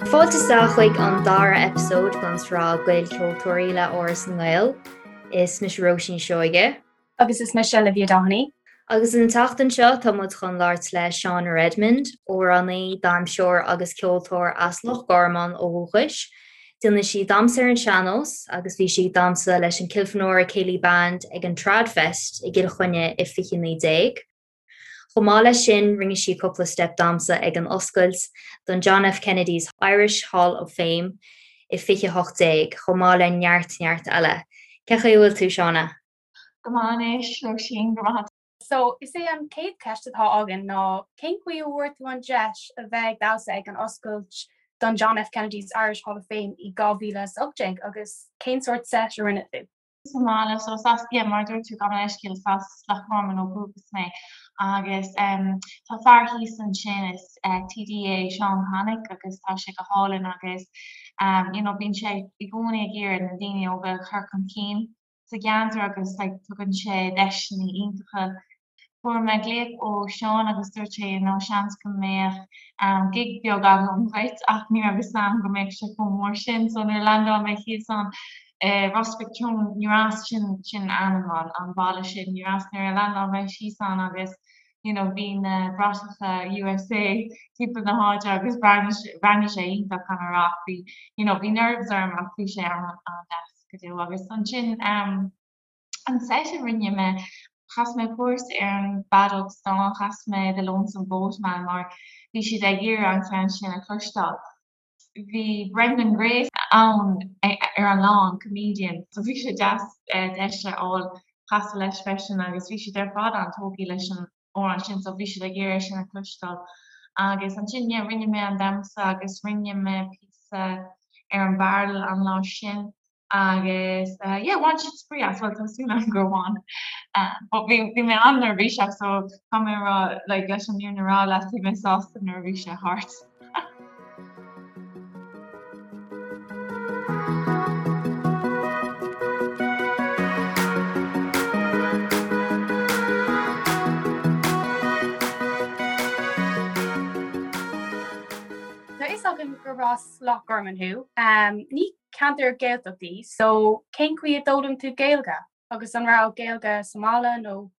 Fáilte isteach chuig an dara eipeasóid den tsraith Gaelcheoltóirí le Áras na nGael. Is mise Róisín Seoige. Agus is mise Olivia Doheny. Agus an tseachtain seo tá muid chun labhairt le Shauna Redmond, amhránaí, damhsóir agus ceoltóir as Loch Garman ó dhúchais. Déanann sí damhsa ar an sean-nós agus bhí sí ag damhsa leis an Kilfenora Céilí Band ag an Tradfest i gCill Chainnigh i 2019. Chomh maith leis sin, rinne sí cúpla steip damhsa ag an oscailt don John F. Kennedy's Irish Hall of Fame i 2018, chomh maith le neart neart eile. Cén chaoi a bhfuil tú, Shauna? Go maith anois, Róisín, go raibh maith. So, is é an chéad cheist atá againn ná cén chaoi a bhfuair tú an deis a bheith ag damhsa ag an oscailt don John F. Kennedy's Irish Hall of Fame i 2018 agus cén sórt set a rinne tú? sa mbaile so is as yeah mar a dúirt tú gabh mo leithscéal is as Loch Garman ó dhúchas mé agus em tá fear thíos ansin is eh TD é Seán Connick agus tá sé go hálainn agus em you know bíonn sé i gcónaí ag iarraidh na daoine óga a chur chun cinn sa gceantar agus like tugann sé deiseanna iontacha Fuair mé glaoch ó Seán agus dúirt sé you know seans go mbeadh gig beag agam dhuit ach ní raibh fhios a'm go mbeadh sé chomh mór sin so nuair a landáil mé thíos ann i Ros Mhic Thriúin ní raibh sin sin ainm an an bhaile sin ní raibh nuair a landáil mé síos ann agus you know bhí na bratacha USA timpeall na háite agus bhreathnaigh sé iontach caithfidh mé a rá ach bhí you know bhí nerves orm ach bhí sé an-deas go deo agus ansin um An set a rinne mé, chas mé píosa ar an bhfeadóg stáin, chas mé The Lonesome Boatman mar bhí siad ag iarraidh an ceann sin a chloisteáil. Bhí Brendan Grace ann ar an lá, an comedian, so bhí sé deas deis a fháil casadh leis freisin agus bhí siad ar fad an-tógtha leis an amhrán sin so bhí siad ag iarraidh sin a chloisteáil. Agus ansin yeah rinne mé an damhsa agus rinne mé píosa ar an bhfeadóg an lá sin. Agus yeah bhain siad spraoi as, bhuel tá súil agam gur bhain. But bhí bhí mé an-neirbhíseach so tá mé a rá like leis an fhírinne a rá leat bhí mé sásta nuair a bhí sé thart. Tá fhios agam gurb as Loch Garman thú. Ní ceantar Gaeltacht í, so cén chaoi a d'fhoghlaim tú Gaeilge? Agus an raibh Gaeilge sa mbaile nó?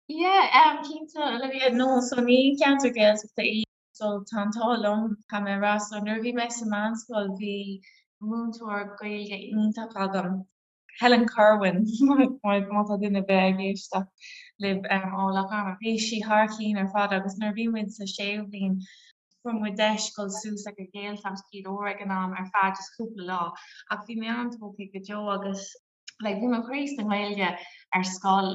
Yeah, um, cinnte, Olivia, no, so ní ceantar Gaeltachta í, so tá an t-ádh liom, caithfidh mé a rá, so nuair a bhí mé sa meánscoil bhí múinteoir Gaeilge iontach agam, Helen Kirwan, má tá duine ar bith ag éisteacht libh ó Loch Garman. Bhí sí thar cinn ar fad agus nuair a bhí muid sa séú bliain fuair muid deis dul suas ag an Ghaeltacht Gaoth Dobhair ag an am ar feadh just cúpla lá ach bhí mé an-tógtha go deo agus like bhí mo chroí sa nGaeilge ar scoil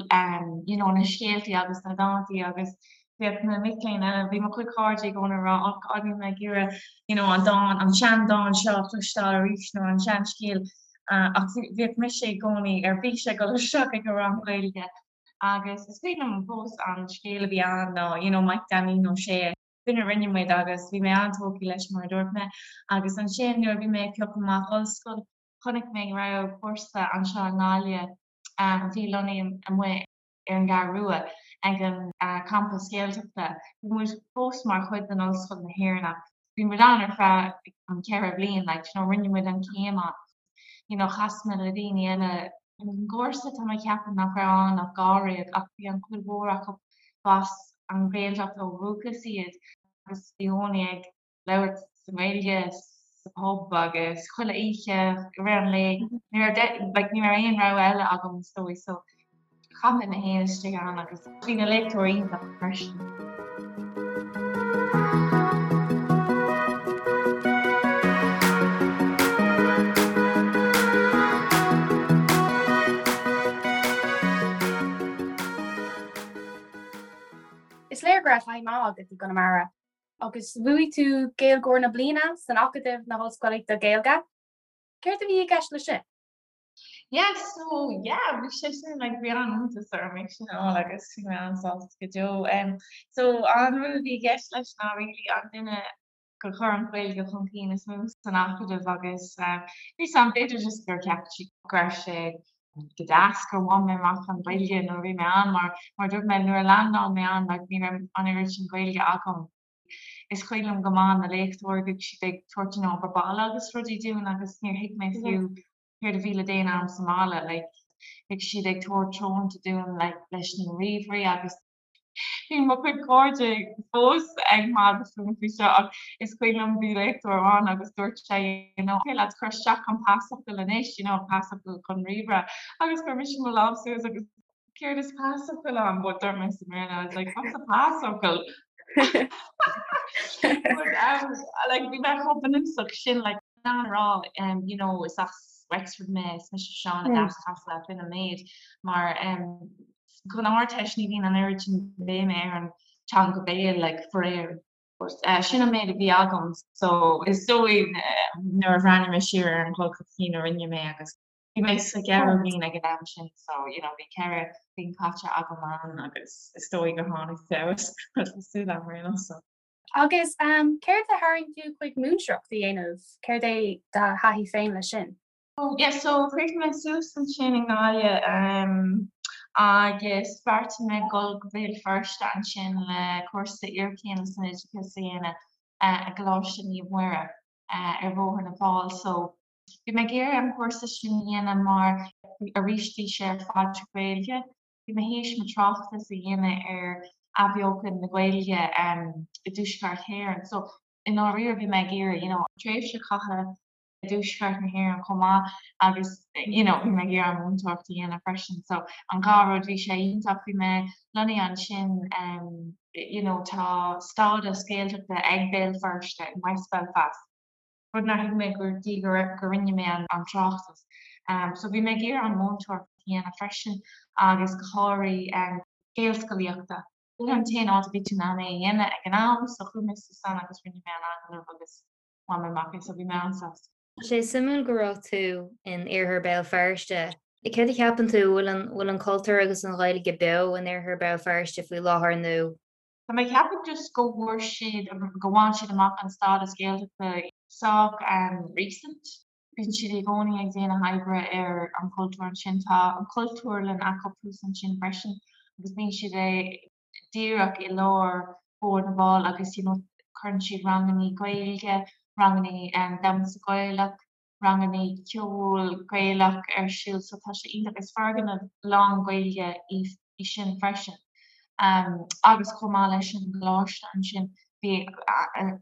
you know na scéaltaí agus na dántaí agus Bhíodh na mic léinn eile, bhí mo chuid cairde i gcónaí ag rá oh God níl mé ag iarraidh you know an dán, an seandán seo a chloisteáil arís nó an seanscéal ach bhíodh mise i gcónaí ar bís ag dul isteach ag an rang Gaeilge agus is cuimhin liom fós an scéal a bhí ann ná you know Mike Danny Ó Sé. Sin a rinne muid agus bhí mé an-tógtha leis mar a dúirt mé agus ansin nuair a bhí mé ag piocadh amach ollscoil chonaic mé go raibh cúrsa anseo i nGaillimh a bhí lonnaithe amuigh ar an gCeathrú Rua ag an campas Gaeltachta. Bhí muid fós mar chuid den Ollscoil na hÉireann ach bhí muid ann ar feadh an cheithre bhliain like you know rinne muid an chéim ann. You know chas mé le daoine eile ar an gcúrsa tá mé ag ceapadh nach raibh ann ach dháréag ach bhí an chuid mhór acu b'as an Ghaeltacht ó dhúchas iad agus i gcónaí ag labhairt sa nGaeilge sa pub agus chuile oíche i rith an lae. Ní raibh like ní raibh aon rogha eile agam is dóigh so chaith mé mé féin istigh ann agus bhí na léachtóirí iontach freisin. Is léir go raibh taithí maith agat i gConamara. Agus bhuaigh tú Gaeilgeoir na Bliana san Acadamh na hOllscolaíochta Gaeilge. Céard a bhí i gceist leis sin? Yeah, so yeah, bhí sé sin like bhí an-iontas orm é sin a fháil agus bhí mé an-sásta go deo. Um, so an rud a bhí i gceist leis ná really an duine gur chuir an Ghaeilge chun cinn is mó san Acadamh agus um, bhí sam b'fhéidir just gur cheap siad go raibh sé go deas gur bhain mé amach an Ghaeilge nuair a bhí mé ann mar mar dúirt mé nuair a landáil mé ann like ní raibh an oiread sin Gaeilge agam. Is cuimhin liom go maith na léachtóirí, bhíodh siad ag tabhairt an obair baile agus rudaí dúinn agus níor thuig mé fiú céard a bhí le déanamh agam sa mbaile, like bhíodh siad ag tabhairt treoirínte dúinn like leis na ríomhairí agus bhí mo chuid cairde fós ag magadh fúm faoi seo ach is cuimhin liom bhí léachtóir amháin agus dúirt sé you know okay lads cuir isteach an pasfhocal anois you know pasfhocal chun ríomhaire agus chuir mise mo lámh suas agus céard is pasfhocal ann but dúirt mé sa mBéarla I was like what's a pasfhocal? But um like bhí mé chomh bunúsach sin like in ann a rá um you know is as Wexford mé is mise Seán mm. as Casla sin an méid mar um Don Ardteist ní bhíonn an oiread sin béime ar an teanga béil like faraor. But eh sin an méid a bhí agam so is dóigh nuair a bhreathnaigh mé siar ar an dhul chun cinn a rinne mé agus bhí mé sa gceathrú bliain ag an am sin so you know bhí 4 bliain caite agam ann agus is dóigh gur tháinig feabhas tá súil agam ar aon nós so. Agus um céard a tharraing tú chuig múinteoireacht a dhéanamh? Céard é do thaithí féin leis sin? Oh yeah so chríochnaigh mé suas ansin i nGaillimh agus bheartaigh mé dul go Béal Feirste ansin le cúrsa iarchéime san oideachas a dhéanamh i gColáiste Naomh Muire ar Bhóthar na bhFál. So bhí mé ag iarraidh an cúrsa sin a dhéanamh mar arís bhí sé ar fad trí Ghaeilge. Bhí mé théis mo tráchtas a dhéanamh ar athbheochan na Gaeilge i dTuaisceart Éireann. So i ndáiríre bhí mé ag iarraidh you know tréimhse a chaitheamh i dtuaisceart na hÉireann chomh maith agus you know bhí mé ag iarraidh an mhúinteoireacht a dhéanamh freisin so an dhá rud bhí sé iontach bhí mé lonnaithe ansin um you know tá stádas Gaeltachta ag Béal Feirste in West Belfast rud nár thuig mé go dtí go go rinne mé an an tráchtas um so bhí mé ag iarraidh an mhúinteoireacht a dhéanamh freisin agus go háirithe um Gaelscolaíochta. Sin an t-aon áit a bhí tú in ann é a dhéanamh ag an am so chuaigh mé suas ann agus rinne mé an agallamh agus Bhain mé amach é so bhí mé an-sásta. Tá sé suimiúil go raibh tú in Iarthar Béal Feirste. Céard a cheapann tú, bhfuil an, bhfuil an cultúr agus an Ghaeilge beo in Iarthar Béal Feirste faoi láthair nó? Tá mé ag ceapadh just go bhfuair siad, go bhain siad amach an stádas Gaeltachta sách recent. Bíonn siad i gcónaí ag déanamh oibre ar an chultúr ansin. Tá an cultúrlann acu thuas ansin freisin agus bíonn siad ag díreach i lár Bhóthar na bhFál agus you know cuireann siad rangannaí Gaeilge, rangannaí damhsa Gaelach, rangannaí ceol Gaelach ar siúl so tá sé iontach. Is foirgneamh lán Gaeilge í sin freisin. Agus chomh maith leis an gcoláiste ansin bhí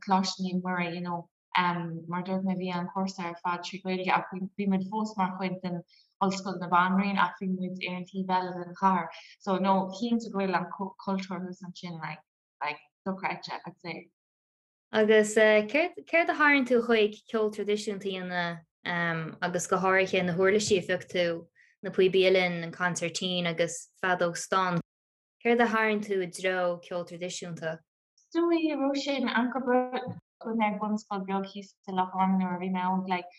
Coláiste Naomh Muire you know Mar a dúirt mé, bhí an cúrsa ar fad trí Ghaeilge ach bhí muid fós mar chuid den Ollscoil na Banríon ach bhí muid ar an taobh eile den chathair. So no, cinnte go bhfuil an cultúr thuas ansin like, like dochreidte, I'd say. Agus céard, céard a tharraing tú chuig ceol traidisiúnta a dhéanamh agus go háirithe na huirlisí a phioc tú, na píobaí uilleann, an consairtín agus feadóg stáin. Céard a tharraing tú i dtreo ceol traidisiúnta? Is dóigh go raibh sé in am go Chuaigh mé ag bunscoil beag thíos i Loch Garman nuair a bhí mé óg like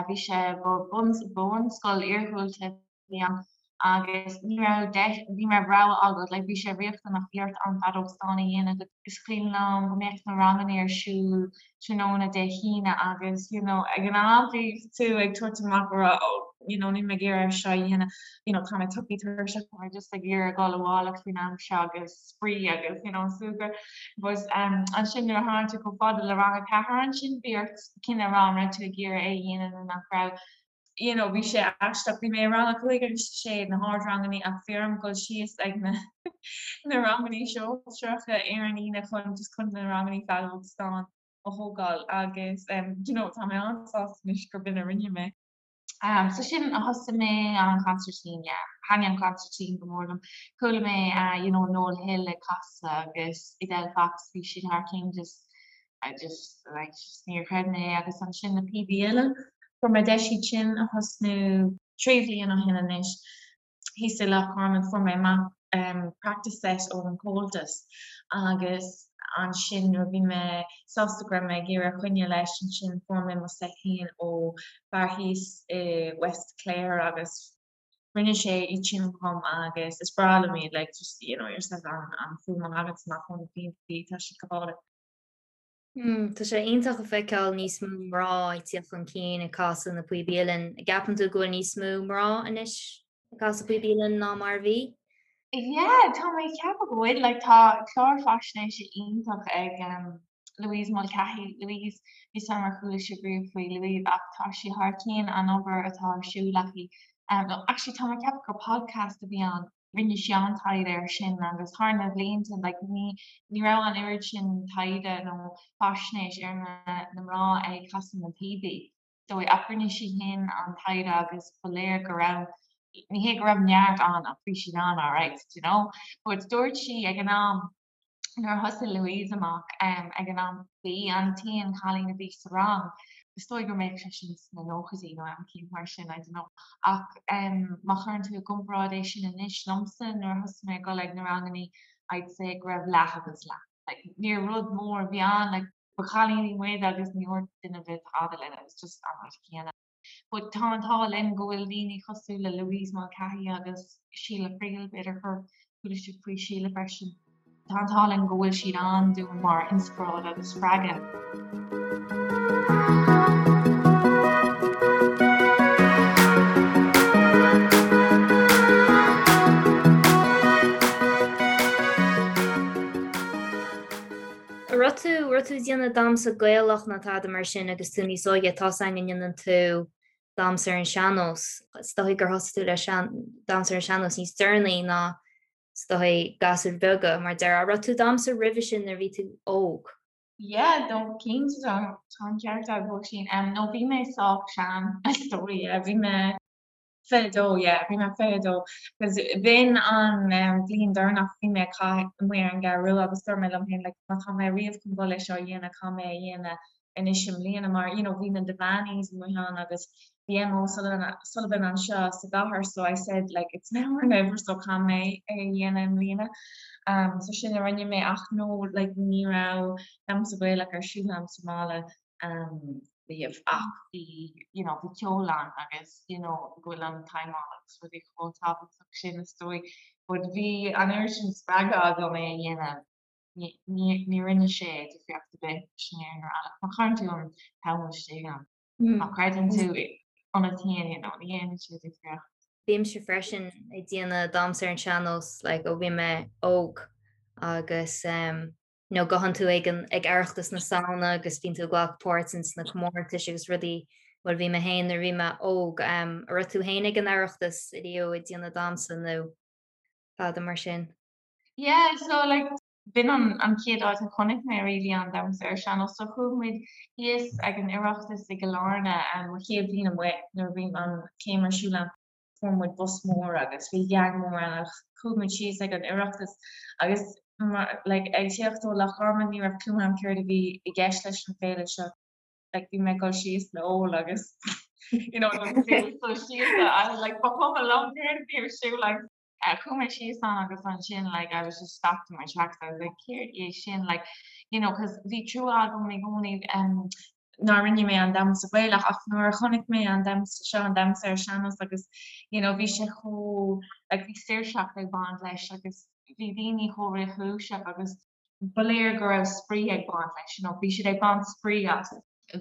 bhí sé ba bunscoil iarghúlta a bhí ann agus ní raibh deis ní raibh rogha agat like bhí sé riachtanach bhí ort an feadóg stáin a dhéanamh is cuimhin liom go mbeadh na ranganna ar siúl tráthnóna Dé hAoine agus you know ag an am bhí tú ag tabhairt amach a rá oh you know níl mé ag iarraidh seo a dhéanamh you know tá mé tugtha tuirseach tá mé just ag iarraidh dul abhaile faoin am seo agus spraoi agus you know súgradh but um ansin nuair a tháinig tú chomh fada le rang a ceathair ansin bhí ort cinneadh a rá an raibh tú ag iarraidh é a dhéanamh nó nach raibh you know bhí sé aisteach bhí mé i rang a cúig agus a sé na hardranganna ach bhí orm dul síos ag na na ranganna sóisearacha ar an Aoine chun just chun na ranganna feadóg stáin a thógáil agus um you know tá mé an-sásta anois gurb in a rinne mé. Um, so sin a thosaigh mé an consairtín, yeah. Thaitnigh an consairtín go mór liom. Chuala mé uh, you know, Noel Hill ag casadh agus Edel Fox, bhí siad thar cinn just, I just, like, just níor chreid mé é agus ansin na píobaí uilleann. Fuair mé deis iad sin a thosnú trí bhliain ó shin anois. Thíos i Loch Garman fuair mé amach practice set ón Comhaltas agus ansin nuair a bhí mé sásta go raibh mé ag iarraidh coinneáil leis ansin fuair mé mo set féin ó fear thíos i West Clare agus rinne sé iad sin dhom agus is breá liom iad like just you know yourself an an fuaim a thagann amach ó na píobaí tá siad go hálainn. Tá sé iontach a feiceáil níos mó mná ag tíocht chun cinn ag casadh na píobaí uilleann. An gceapann tú go bhfuil níos mó mná anois ag casadh píobaí uilleann ná mar a bhí? Yeah, tá mé ag ceapadh go bhfuil. Like, tá clár faisnéise iontach ag um. Louise Mulcahy, Louise, níl 's a'm ar chuala sibh riamh faoi Louise ach tá sí thar cionn an obair atá ar siúl aici. No, actually tá mé ag ceapadh gur podcast a bhí ann, rinne sí an-taighde air sin agus thar na blianta like ní ní raibh an oiread sin taighde nó faisnéis ar na na mná ag casadh na píobaí. So ach rinne sí féin an taighde agus ba léir go raibh, ní hé go raibh neart ann ach bhí siad ann alright, do you know. But dúirt sí ag an am nuair a thosaigh Louise amach ag an am ba í an t-aon chailín a bhí sa rang, is dóigh go mbeadh sé sin sna nóchaidí nó am eicínt mar sin, I don't know. Ach má chuireann tú i gcomparáid é sin anois liomsa nuair a thosaigh mé ag dul ag na rangannaí I'd say go raibh leath agus leath. Like níor rud mór a bhí ann like ba chailíní muid agus ní dúirt duine ar bith tada linn, it was just an rud céanna. But tá an t-ádh linn go bhfuil daoine cosúil le Louise Mulcahy agus Sheila Friel, b'fhéidir gur chuala sibh faoi Sheila freisin. Tá an t-ádh linn go bhfuil siad ann dúinn mar inspioráid agus spreagadh. An raibh tú, raibh tú ag déanamh damhsa Gaelach nó tada mar sin agus tú níos óige, tá's againn go ndéanann tú damhsa ar an sean-nós. Is dóigh gur thosaigh tú le sean, damhsa ar an sean-nós níos deireanaí ná is dóigh gasúir bheaga mar déarfá. An raibh tú ag damhsa roimhe sin nuair a bhí tú óg? Yeah, no, cinnte tá, tá an ceart agat, Róisín. No, bhí mé sách sean, is dóigh, yeah, bhí mé 22, yeah, bhí mé 22. Cos b'in an bhliain deireanach bhí mé ag caitheamh amuigh ar an gCeathrú Rua agus dúirt mé liom féin like má tá mé riamh chun dul é seo a dhéanamh, caithfidh mé é a dhéanamh anois i mbliana mar you know bhí na Devaneys amuigh ann agus bhí Emma O'Sullivan Sullivan anseo sa gcathair so I said like it's now or never so caithfidh mé é a dhéanamh i mbliana. Um, so sin a rinne mé ach no like ní raibh damhsa Gaelach ar siúl agam sa mbaile um, riamh ach bhí you know bhí ceol ann agus you know go bhfuil an t-aidhm agus rudaí chomh tábhachtach sin is dóigh but bhí an oiread sin spreagadh agam é a dhéanamh ní ní ní rinne sé difríocht ar bith sin ar an má chuireann tú an t-am istigh ann má chreideann tú ionat féin you know ní dhéanann sé difríocht. Bímse freisin ag déanamh damhsa ar an sean-nós like ó bhí mé óg agus um, nó gabhann tú ag an ag Oireachtas na Samhna agus bíonn tú ag glacadh páirt ins na comórtais agus rudaí, bhuel bhí mé féin nuair a bhí mé óg, an raibh tú féin ag an Oireachtas riamh ag déanamh damhsa nó tada mar sin? Yeah, so like b'in an an chéad áit a chonaic mé really an damhsa ar sean-nós, so chuaigh muid thíos ag an Oireachtas i gCill Airne mo chéad bhliain amuigh nuair a bhí an chéim ar siúl agam. fuair muid bus mór agus bhí gang mór ann agus chuaigh muid síos ag an Oireachtas agus like ag tíocht ó Loch Garman ní raibh clue agam céard a bhí i gceist leis an féile seo like bhí mé ag dul síos le ól agus you know dul síos I was like ba chuma liom céard a bhí ar siúl like chuaigh mé síos ann agus ansin like I was just stopped in my tracks I was like céard é sin like you know cause bhí trua agam i gcónaí um, nár rinne mé an damhsa Gaelach ach nuair a chonaic mé an damhsa seo, an damhsa ar sean-nós agus you know bhí sé chomh like bhí saoirseacht ag baint leis agus bhí daoine chomh réchúiseach agus ba léir go raibh spraoi ag baint leis, you know bhí siad ag baint spraoi as.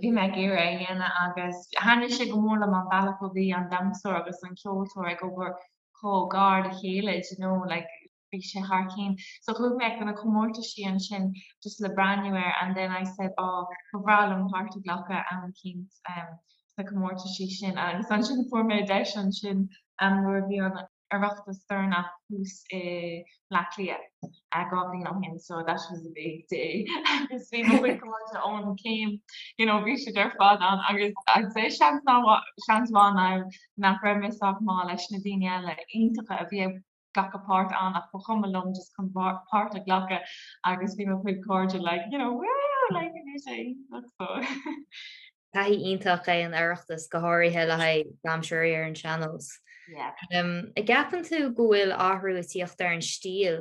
Bhí mé ag iarraidh é a dhéanamh agus thaitnigh sé go mór liom an bealach a bhí an damhsóir agus an ceoltóir ag obair chomh gar le chéile, do you know like bhí sé thar cionn. So chuaigh mé go na comórtaisí ansin just le breathnú air and then I said oh ba bhreá liom páirt a ghlacadh am eicínt sna comórtaisí sin agus ansin fuair mé deis ansin nuair a bhí an Oireachtas deireanach thuas i mBleá Cliath 2 bhliain ó shin so that was a big day agus bhí mo chuid cairde ón chéim you know bhí siad ar fad ann agus I'd say seans seans mhaith now nach raibh mé sách maith leis na daoine eile iontacha a bhí ag glacadh páirt ann ach ba chuma liom just chun páirt a ghlacadh agus bhí mo chuid cairde like you know woo like bhí sé iontach so. Taithí iontach é an Oireachtas, go háirithe le haghaidh damhsóirí ar an sean-nós. Yeah. An gceapann tú go bhfuil athrú ag tíocht ar an stíl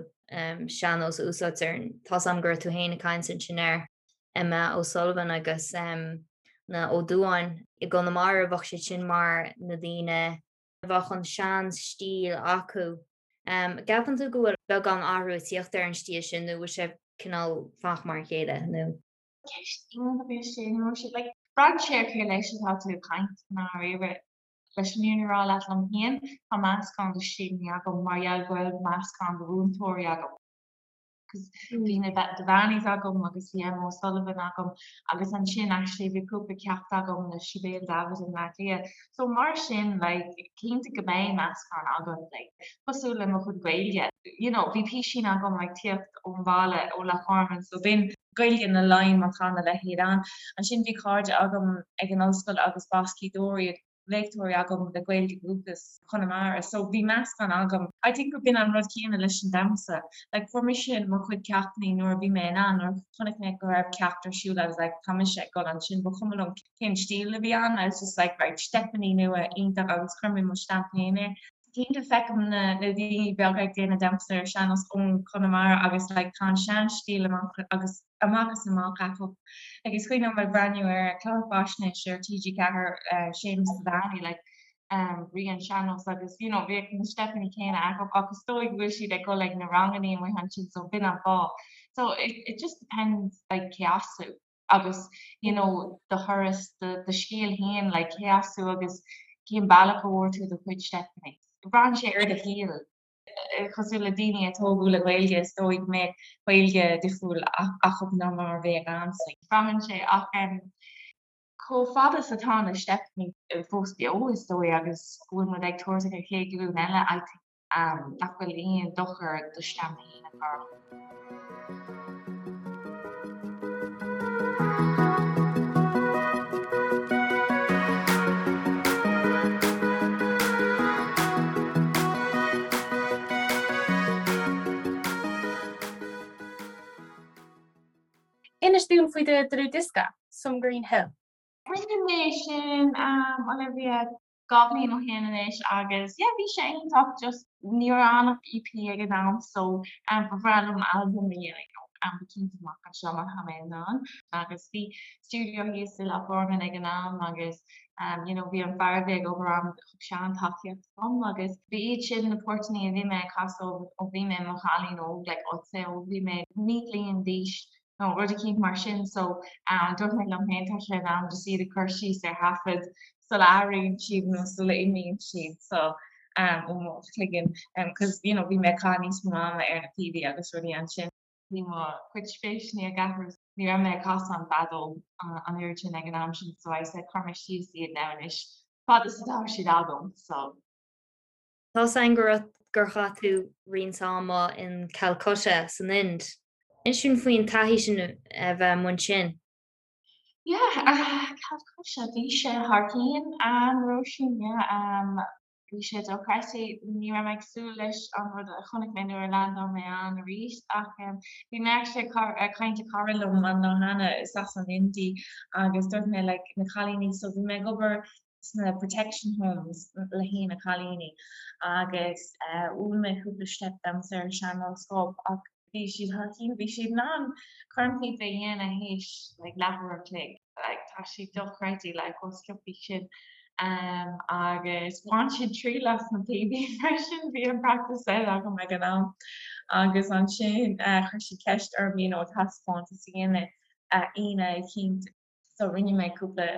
sean-nós a úsáidtear? Tá's a'm go raibh tú féin ag caint ansin ar Emma O'Sullivan agus na Ó Dubháin i gConamara, bheadh siad sin mar na daoine bheadh an sean-stíl acu. Gceapann tú go bhfuil beagán athrú ag tíocht ar an stíl sin nó bhfuil sé cineál fanacht mar a chéile nó? Ceist iontach é sin, Róisín. Like, braitheann sé ar cé leis atá tú ag caint i ndáiríre. Leis an fhírinne a rá leat liom féin, tá meascán de stíleanna agam mar gheall go bhfuil meascán de mhúinteoirí agam. Cos bhí na Devaneys agam agus bhí Emma O'Sullivan agam agus ansin actually bhí cúpla ceacht agam le Sibéal Davitt i mBleá Cliath. So mar sin like cinnte go mbeidh meascán agat like cosúil le mo chuid Gaeilge. You know bhí písín agam like tíocht ón bhaile ó Loch Garman so b'in Gaeilge na Laighean má tá a leithéid ann. Ansin bhí cairde agam ag an ollscoil agus b'as Gaoth Dobhair iad. léachtóirí agam le Gaeilge dhúchas Chonamara so bhí meascán agam. I think gur b'in an rud céanna leis an damhsa. Like fuair mise mo chuid ceachtanna nuair a bhí mé in ann, nuair a chonaic mé go raibh ceacht ar siúl I was like tá mise ag dul ansin, ba chuma liom cén stíl a bhí ann, I was just like right steipeanna nua iontach agus chuir mé mo stamp féin air. Cinnte feicim na daoine beaga ag déanamh damhsa ar sean-nós ón Chonamara agus like tá an sean-stíl amach agus amach is amach acu. Like is cuimhin liom ag breathnú ar chlár faisnéise ar TG4 Séamus Devaney like Rí an Sean-Nós agus you know bhíodh na steipeanna céanna acu ach is dóigh go bhfuil siad ag dul ag na ranganna amuigh ansin so b'in an fáth. So it it just depends like cé as tú agus you know do thuras do do scéal féin like cé as tú agus cén bealach a bhfuair tú do chuid steipeanna. Braitheann sé ar do shaol. Cosúil le daoine a tógadh le Gaeilge, is dóigh go mbeadh Gaeilge difriúil acu ná mar a bheadh agamsa. Braitheann sé ach chomh fada is atá na steipeanna fós beo, is dóigh, agus go bhfuil muid ag tabhairt ag an chéad ghlúin eile, I think nach bhfuil aon dochar do stamp féin a chur orthu. Inis dúinn faoi do dhlúthdhiosca, Some Green Hill. Rinne mé sin, Olivia, 2 bhliain ó shin anois agus yeah bhí sé iontach just ní raibh ann ach EP ag an am so ba bhreá liom albam a dhéanamh you know go cinnte amach anseo má tá mé in ann agus bhí stiúideo thíos i Loch Garman ag an am agus you know bhí an fear a bhí ag obair ann thug sé an-tacaíocht dom agus ba iad sin na portanna a bhí mé ag casadh ó bhí mé i mo chailín óg like I'd say ó bhí mé 9 bliain d'aois nó rud eicínt mar sin so dúirt mé liom féin tá sé in am just iad a chur síos ar thaifead sula athraíonn siad nó sula imíonn siad so ó mo chloigeann cos you know bhí mé ag caitheamh níos mó ama ar na píobaí agus rudaí ansin. Bhí mo chuid spéiseanna ag athrú ní raibh mé ag casadh an feadóg an oiread sin ag an am sin so I said cuir mé síos iad now anois fad is atá siad agam so. Tá's againn go raibh gur chaith tú roinnt ama in Calcutta san Ind. Inis dúinn faoin taithí sin a bheith amuigh ansin. Yeah, Calcutta, bhí sé thar cionn, Róisín, yeah. Bhí sé dochreidte, ní raibh mé ag súil leis an rud a chonaic mé nuair a landáil mé ann arís ach bhí mé actually ag caint le cara liom an lá cheana is as an Ind í agus dúirt mé like na cailíní so bhí mé ag obair sna protection homes le haghaidh na cailíní agus mhúin mé cúpla steip damhsa ar sean-nós dóibh ach bhí siad thar cionn, bhí siad in ann cornphíopa a dhéanamh théis like leathuair a chloig, like tá sé dochreidte like chomh sciobtha sin um agus bhain siad triail as na píobaí freisin, bhí an practice set agam ag an am agus ansin chuir siad ceist orm you know taispeántas a dhéanamh Aoine eicínt. So rinne mé cúpla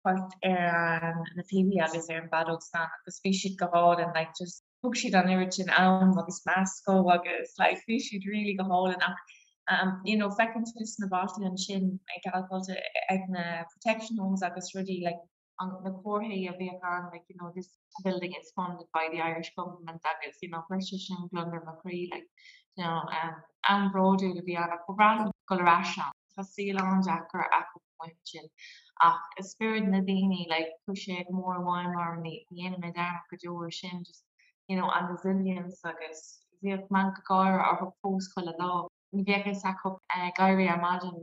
port ar na píobaí agus ar an bhfeadóg stáin agus bhí siad go hálainn like just thug siad an oiread sin am agus meas dó agus like bhí siad really go hálainn ach um you know feiceann tú sna bailte ansin i gCalcutta ag na protection homes agus rudaí like an na comharthaí a bhíodh ann like you know this building is funded by the Irish government agus you know chuir sé sin gliondar mo chroí like you know um am bródúil a bhí ann ach ba bhreá liom dul ar ais ann. Tá saol an-deacair acu amuigh ansin ach spiorad na daoine like chuaigh sé go mór i bhfeidhm orm ní dhéanfaidh mé dearmad go deo ar sin just you know an resilience agus bhíodh meangadh gáire orthu fós chuile lá. Ní bheadh fhios acu ag éirí ar maidin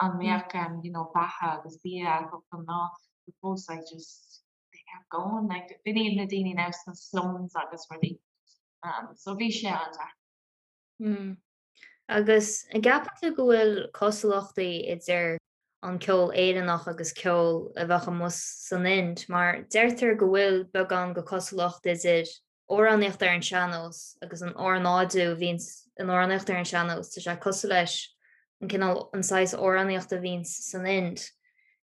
an mbeadh you know beatha agus bia acu don lá but fós like just they kept going like b'in iad na daoine now sna slums agus rudaí um so bhí sé an-deacair. Mm. Agus an gceapann tú go bhfuil cosúlachtaí idir an ceol Éireannach agus ceol a bheadh amuigh san Ind mar deirtear go bhfuil beagán de chosúlacht idir amhránaíocht ar an sean-nós agus an ornáidiú a bhíonns in amhránaíocht ar an sean-nós, tá sé cosúil leis an cineál, an saghas amhránaíochta a bhíonns san Ind.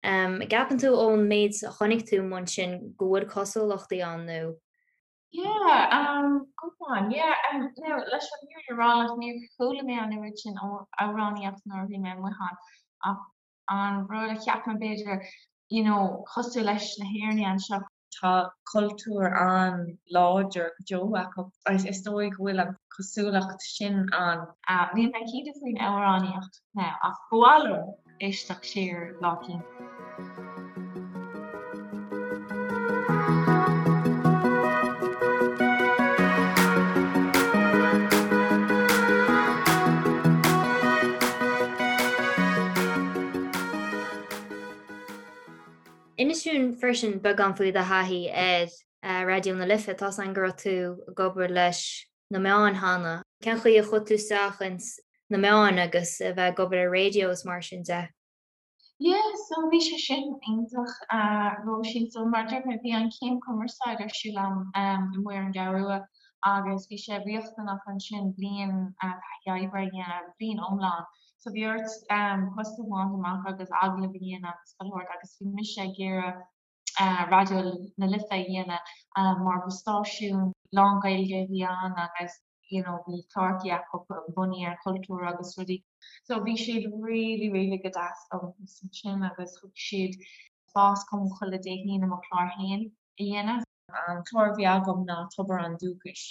An gceapann tú ón méid a chonaic tú amuigh ansin go bhfuil cosúlachtaí ann nó? Yeah, um, good one, yeah, um, now leis an fhírinne. a rá leat, níor chuala mé an oiread sin amhránaíocht nuair a bhí mé amuigh ann ach an rud a cheap mé b'fhéidir, you know, cosúil leis na hÉireannaigh anseo, tá cultúr an-láidir go deo acu agus is dóigh go bhfuil an cosúlacht sin ann. Níl mé cinnte faoin amhránaíocht now ach ba mhaith liom éisteacht siar lá eicínt. Inis dúinn freisin beagán faoi do thaithí ar Raidió na Life. Tá's againn go raibh tú ag obair leis na meáin cheana. Cén chaoi a chuaigh tú isteach ins na meáin agus a bheith ag obair ar raidió is mar sin de? Yeah, so bhí sé sin iontach, Róisín. So mar a dúirt mé, bhí an chéim cumarsáid ar siúl agam amuigh ar an gCeathrú Rua agus bhí sé riachtanach ansin bliain taithí oibre a dhéanamh, bliain iomlán. So bhí ort post a bhaint amach agus agallamh a dhéanamh agus chuile shórt agus bhí mise ag iarraidh Raidió na Life a dhéanamh mar ba stáisiún lán-Ghaeilge a bhí ann agus you know bhí cláracha acu bunaithe ar chultúr agus rudaí. So bhí siad really really go deas liom ansin agus thug siad spás dom chuile Dé hAoine mo chlár féin a dhéanamh. An clár a bhí agam ná Tobar an Dúchais,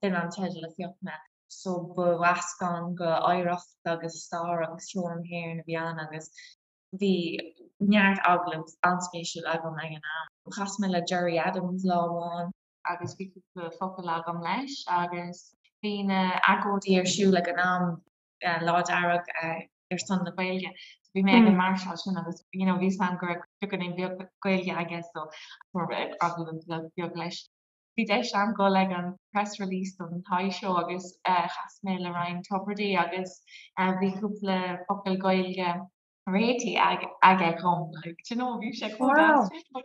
b'in an teideal a phioc mé. So ba mheascán de oidhreacht agus stair agus ceol na hÉireann a bhí ann agus bhí neart agallamh an-spéisiúil agam ag an am. Chas mé le Gerry Adams lá amháin agus bhí cúpla focal agam leis agus bhí na agóidí ar siúl ag an am, Lá Dearg ar son na Gaeilge. So bhí mé ag an máirseáil sin agus you know bhí a fhios agam go raibh beagáinín beag Gaeilge aige so fuair mé agallamh beag leis. Bhí deis agam dul ag an press release don Toy Show agus chas mé le Ryan Tubridy agus bhí cúpla focal Gaeilge réitithe aige dhom like do you know bhí sé chomh deas sin but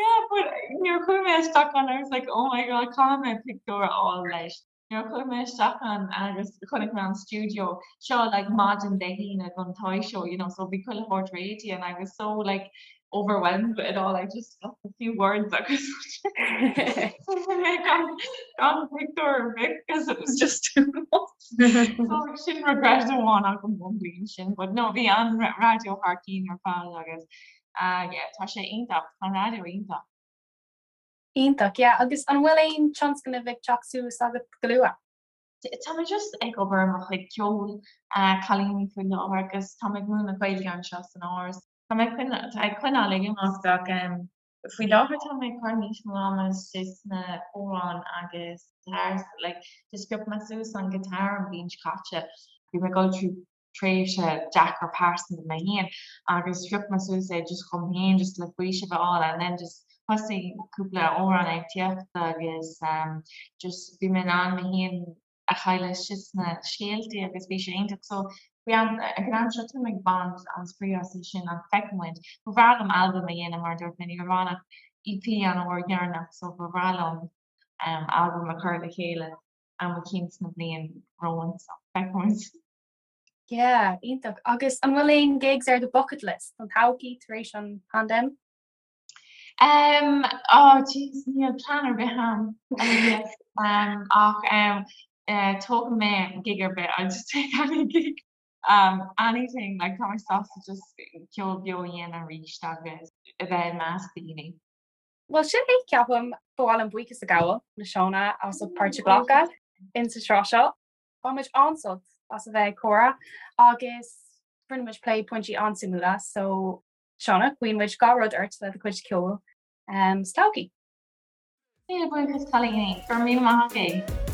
yeah but nuair a chuaigh mé isteach ann I was like oh my god caithfidh mé pictiúr a fháil leis. Nuair a chuaigh mé isteach ann agus chonaic mé an stiúideo seo like maidin Dé hAoine don Toy Show you know so bhí chuile shórt réitithe and I was so like overwhelmed with it all I just got a few words agus mé gan gan pictiúr ar bith because it was just too much. So sin regret amháin agam ón bhliain sin but no bhí an raidió thar cinn ar fad agus uh yeah tá sé iontach tá an raidió iontach. Iontach, yeah. Agus an bhfuil aon tionscnamh ag teacht suas agat go luath? Tá mé just ag obair ar mo chuid ceoil, cailíní faoi láthair agus tá mé ag múineadh Gaeilge anseo san Áras. Tá mé ag coinneáil ag imeacht ach faoi láthair tá mé ag cur níos mó ama istigh sna hamhráin agus guitar, like just phioc mé suas an guitar an bhliain seo caite. Bhí mé ag dul trí tréimhse deacair pearsanta mé féin agus phioc mé suas é just dhom féin just le faoiseamh a fháil and then just thosaigh cúpla amhrán ag tíocht agus um just bhí mé in ann mé féin a chailleadh istigh sna scéaltaí agus bhí sé iontach so faoi am ag an am seo táim ag baint an-spraoi as é sin ach feicfidh muid. Ba bhreá liom albam a dhéanamh mar a dúirt mé ní raibh ann ach EP an uair dheireanach so ba bhreá liom um albam a chur le chéile am eicínt sna bliain romhainn so feicfidh muid. Yeah, iontach. Agus an bhfuil aon gigs ar do bucket list don todhchaí tar éis an paindéim? Um, oh jeez, níl plean ar bith agam um, ach um, uh, tógfaidh mé gig ar bith, I'll just take any gig. Um, anything, like tá mé sásta just ceol beo a dhéanamh arís agus a bheith i measc daoine. Bhuel sin é ceapaim ba mhaith liom buíochas a ghabháil le Shauna as ucht páirt a ghlacadh in sa tsraith seo. Bhain muid an-sult as a bheith ag comhrá agus rinne muid plé pointí an-suimiúla so Shauna, guíonn muid gach rud ort le do chuid ceoil sa todhchaí. Míle buíochas cailíní, go raibh míle maith agaibh.